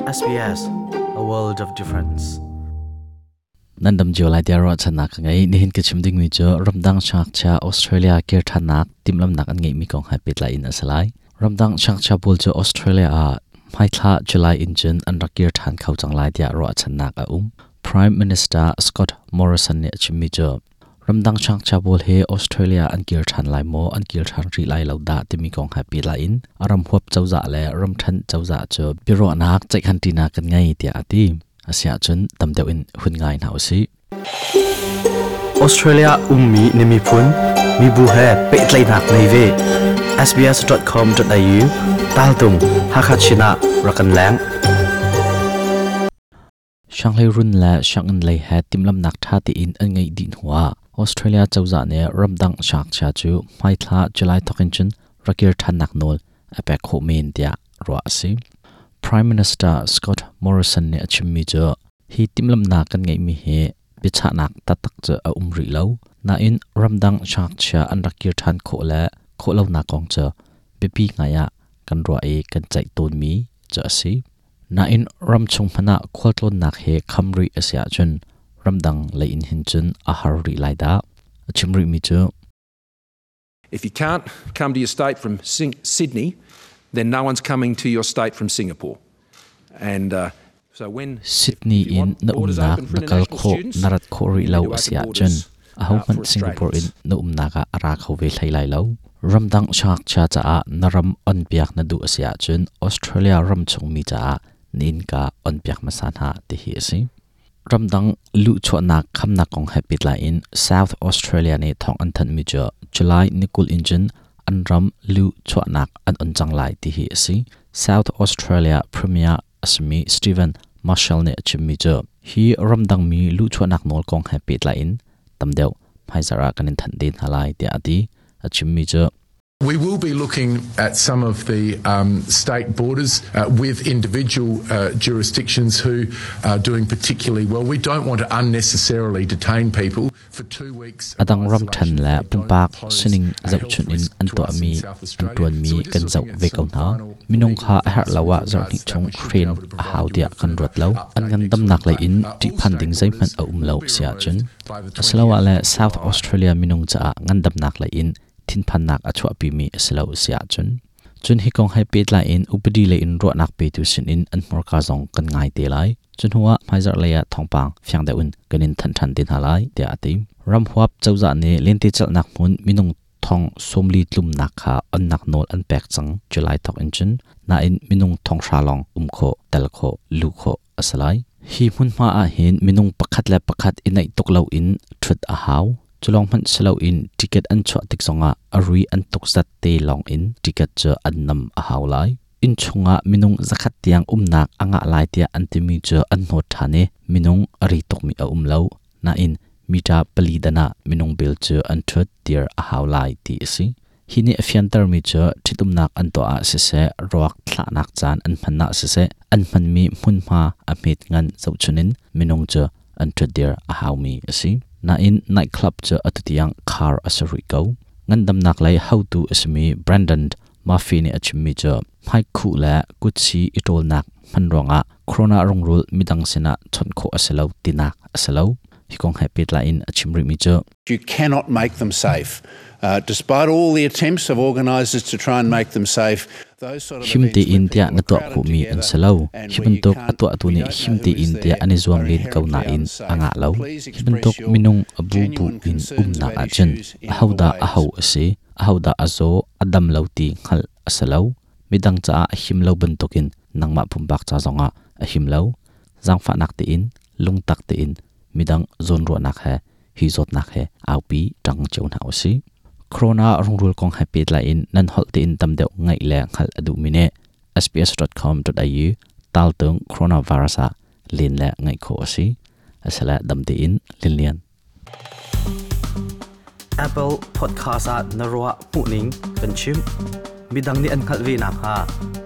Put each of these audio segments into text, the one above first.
SBS, a world of difference. Nan dam cio lai tiah ruahchannak ka ngei. Nihin ka chim dingmi cu ramdang siangngakchia Australia kir ṭhannak timhlamhnak an ngeihmi kong he pehtlai in a si lai. Ramdang siangngakchia pawl cu Australia ah hmaithla July in cun an rak kir ṭhan kho cang lai tiah ruahchannak a um. Prime Minister Scott Morrison nih a chimmi cu Ramdang siangngakchia pawl hi Australia an kir ṭhan lai maw, an kir ṭhan rih lai lo dah timi kong he pehtlai in a ram huap cozah le ramṭhen cozah cu biaruahnak ceihkhanṭinak kan ngei tiah a ti. Asiahcun tam deuh in hun ngai hna usih. Australia ummi na miphun, mibu he pehtlaihnak nei ve. sbs.com.au taltung Hakha Chin ah rak kan leng. Sianghleirun le sianginn lei he timhlamhnak ṭha tein an ngeih dih hnuah Australia cozah nih ramdang siangngakchia cu hmaithla July thawk in cun rak kir ṭhannak nawl a pek khawh men tiah ruah a si. Prime Minister Scott Morrison nih a chimmi cu hi timhlamhnak kan ngeihmi hi biachahnak taktak cu a um rih lo. Nain ramdang siangngakchia an rak kir ṭhan khawh le khawh lonak kong cu biapi ngai ah kan ruah i kan ceih tawnmi cu a si. Nain ramchung hmanh ah khualtlawnnak hi kham rih a si ahcun ramdang lei in hin cun a har rih lai dah. A chim rihmi cu If you can't come to your state from Sydney, then no one's coming to your state from Singapore. And so when Sydney in na umnak na kal khawh na rat khawh rih lo a si ahcun ahohmanh Singapore in na umnak ah a ra kho ve hlei lai lo. Ramdang siangngakchia caah na ram onpiak na duh a si ahcun Australia ram chungmi caah na innka onpiak hmasa hna ti hi a si. Ramdang luhchuahnak khamnak kong he pehtlai in South Australia nih thawng an thanhmi cu July ni 20 in cun an ram luhchuahnak an on cang lai ti hi a si. South Australia Premier a simi Steven Marshall nih a chimmi cu hi ramdangmi luhchuahnak nawl kong he pehtlai in tam deuh hmaizarh ah kan in thanh te hna lai tiah a ti. A chimmi cu We will be looking at some of the state borders with individual jurisdictions who are doing particularly well. We don't want to unnecessarily detain people for 2 weeks. A dang ramṭhen le pumpak sining zohchunh in an tuahmi an ṭuanmi kan zoh ve ko hna. Minung kha a herh lo ah zarhhnih chung hren a hau tiah kan ruat lo. An ngandamnak lei in ṭihphan ding zeihmanh a um lo si ahcun asiloah le South Australia minung caah ngandamnak lei in thinphannak a chuahpimi a si lo si ahcun cun hi kong he pehtlai in upadi lei in ruahnak petu sinin an hmurka zong kan ngai te lai. Cu hnuah hmaizarh lei ah thawngpang fiang deuh in kan in thanh ṭhan te hna lai tiah a ti. Ramhuap cozah nih lentecelhnak hmun minung thong 40 tlumnak kha onnak nawl an pek cang July thawk in cun nain minung 5,000 lawng um khawh, tel khawh, luh khawh a si lai. Hi hmunhma ah hin minung pakhat le pakhat i naih tuk loin ṭhut a hau. Cu lawng hmanh si loin ticket an chuah tik zongah a rui an tuk zat te lawng in ticket cu an nam a hau lai. Inn chungah minung 100 tiang umnak a ngah lai tiah an timi cu an hnawt ṭhan i minung a ri tukmi a um lo. Nain mita pali dan ah minung bel cu an ṭhut dir a hau lai ti a si. Hi nih a fiantermi cu ṭhitumnak an tuah ah siseh, ruak thlahnak caan an hman ah siseh, an hmanmi hmunhma a hmet ngan zohchun in minung cu an ṭhutdir a haumi a si. Nain nightclub cu atu tiang khar a si rih ko. Ngandamnak lei hotu a simi Brandon Murphy nih a chimmi cu hmaikhuh le kutsi i ṭawlnak hman ruangah corona rungrul midang sinah chawnh khawh a si lo tinak a si lo. Hi kong he pehtlai in a chim rihmi cu You cannot make them safe. Despite all the attempts of organisers to try and make them safe, Him tein tiah na tuah khawhmi an si lo. Hi bantuk a tuahtu nih him tein tiah an i zuam len ko nain a ngah lo. Hi bantuk minung a bubu in umnak ahcun ahodah aho a si, ahodah a zaw, a dam lo ti hngalh a si lo. Midang caah a him lo bantukin nangmah pumpak ca zongah a him lo. Zaangfahnak tein, lungtak tein midang zawnruahnak he hi zawtnak he aupi ṭang cio hna usih. Corona rungrul kong he pehtlai in nan holh tein tam deuh ngaih le hngalh a duhmi nih sbs.com.au taltung coronavirus ah len le ngaih khawh a si. Asile dam tein Linlian. Apple Podcast ah na ruah hmuhning kan chim. Midang nih an hngalh ve nakhnga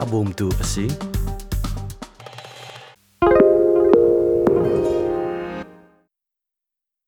a bawmtu a si.